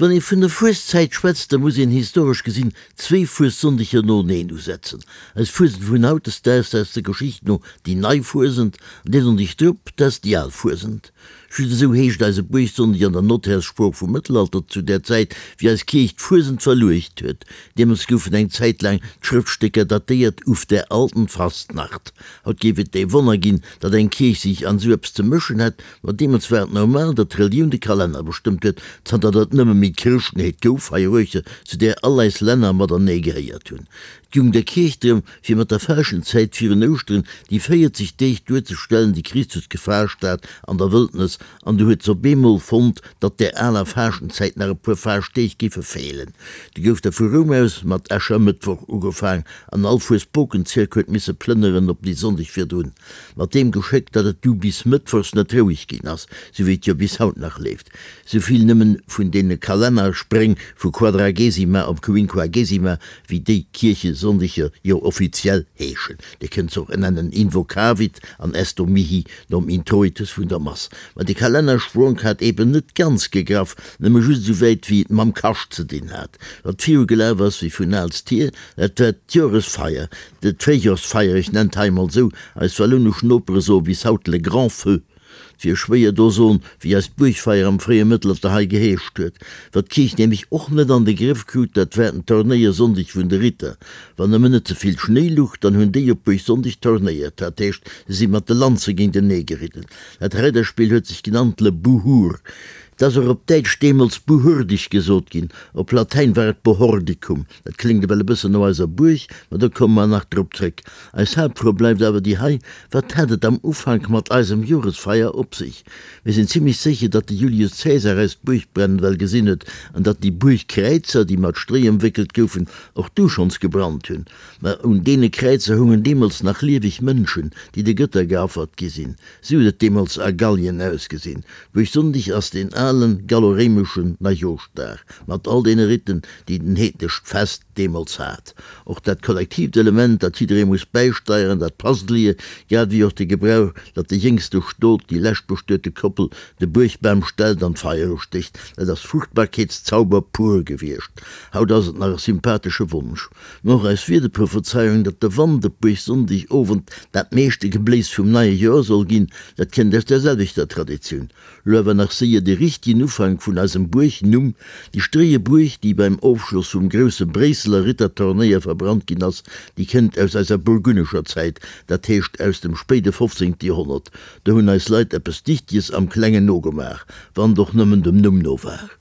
Wann ee vun der Fueszäit schwätzt, da muss een historesch gesinn zwéi Fuessonndeger noeneen usetzen. Eis Fuesent vun hautdesdaags ass der Geschicht no déi nei Fuesent, an dee Sonndeg drop, dat ass déi al Fuesent. Just esou heescht eise Buergsonndeg an der Notärssprooch vum Mëttelalter, zu där Zäit, wéi eis Kierch d'Fuesent verluecht huet. Deemools goufen eng Zäit laang d'Schrëftstécker datéiert uf der alten Fastnacht. Haut géif et ee Wonner ginn, datt eng Kierch sech an esou eppes ze mëschen hätt, ma deemools war et normal, datt d'Relioun de Kalenner bestëmmt huet, zanter datt et nëmme méi d'Chrëschtenheet gouf hei eruechter, zu där all eis Länner matenee gehéiert hunn. Et goung der Kierch drëm, fir mat der Faaschtenzäit virun Ouschteren déi 40 Deeg duerzestellen, déi Christus gefaascht hat an der Wëldnes, an du huet s'op eemol fonnt, datt där aler Faaschtenzäit nach e puer Faaschtdeeg géife feelen. Du gouf da vu Roum aus mat Äschermëttwoch ugefaang, an all Fuesbokenzierk huet misse plënneren op déi Sonndeg virdrun, mat deem Geschéck, datt et du bis mëttwochs net roueg ginn ass, sou wéi et jo bis haut nach leeft. Souvill nëmmen vun deene Kalennerspréng vu Quadragesima op Quinquagesima, wéi déi Kierchesonndeger jo offiziell heeschen. Dir kënnt se och nennen Invocavit an Esto mihi nom Introitus vun der Mass. Ma de Kalennerspronk hat eben net ganz gegraff, nëmme just esou wäit wéi et mam Kascht ze dinn hat. Wat viru gelaf ass wéi vun aalst hier, dat war d'Joresfeier, d'Fréijorsfeier, ech nennt hei emol esou, eis wallounesch Nopere soe bis haut le grand feu. 't wier schwéier do soen, wéi eist Buergfeier am fréie Mëttelalter hei geheescht huet. Wat d'Kierch nämlech och net an de Grëff krut, dat war den Tornéiersonndeg vun de Ritter. Wann nëmmen net ze vill Schnéi luch, dann hunn déi op Buergsonndeg tornéiert, dat heescht, se si mat de Lanze géintenee geridden. Dat Reiderspill huet sech genannt le Buhur. 't ass och op Däitsch deemools Buhurdig gesot ginn, op Latäin war et Bohordicum. Dat kléngt ewell e bëssen no eiser Buerg, ma do komme mer nach drop zréck. Eis Haaptfro bleift awer déi hei, Wat hat et am Ufank mat eisem Joresfeier op sech? Mir sinn zimlech sécher, datt de Julius Caesar eis d'Buergbrennen well gesinn huet an datt déi Buergkräizer, déi mat Stréi ëmwéckelt goufen, och du schonns gebrannt hunn. Ma un deene Kräizer hungen deemools nach lieweg Mënschen, déi de Gëtter geaffert gi sinn. Sou huet et deemools a Gallien ausgesinn. Buergsonndeg ass deen alen gallo-réimeschen Neijooschdag mat all deene Riten, déi den heednescht Fest deemools hat. Och dat kollektiivt Element, dat jidderee muss bäisteieren, dat passt lier, grad ewéi och de Gebrauch, datt de jéngste Stot déi leschtbestuete Koppel de Buergbam stellt an d'Feier ustécht. Dat ass Fruchtbarkeetszauber pur gewiescht. Haut ass et nach e sympathesche Wonsch. Mä och eis Wiederprophezeiung, datt de Wand op Buergsonndeg Owend dat meeschte Gebléis vum neie Joer soll ginn, dat kënnt aus där selwechter Traditioun. Lo awer nach séier de richtegen Ufank vun eisem Buergnumm, Déi stréie Buerg, déi beim Ofschloss vum grousse Bréisseler Rittertornéier verbrannt ginn ass, déi kënnt aus eiser burgunnescher Zäit, dat heescht aus dem spéide 15. Joerhonnert. Do hunn eis Leit eppes Dichteges am Klengen nogemaach, wann et och nëmmen dem Numm no war.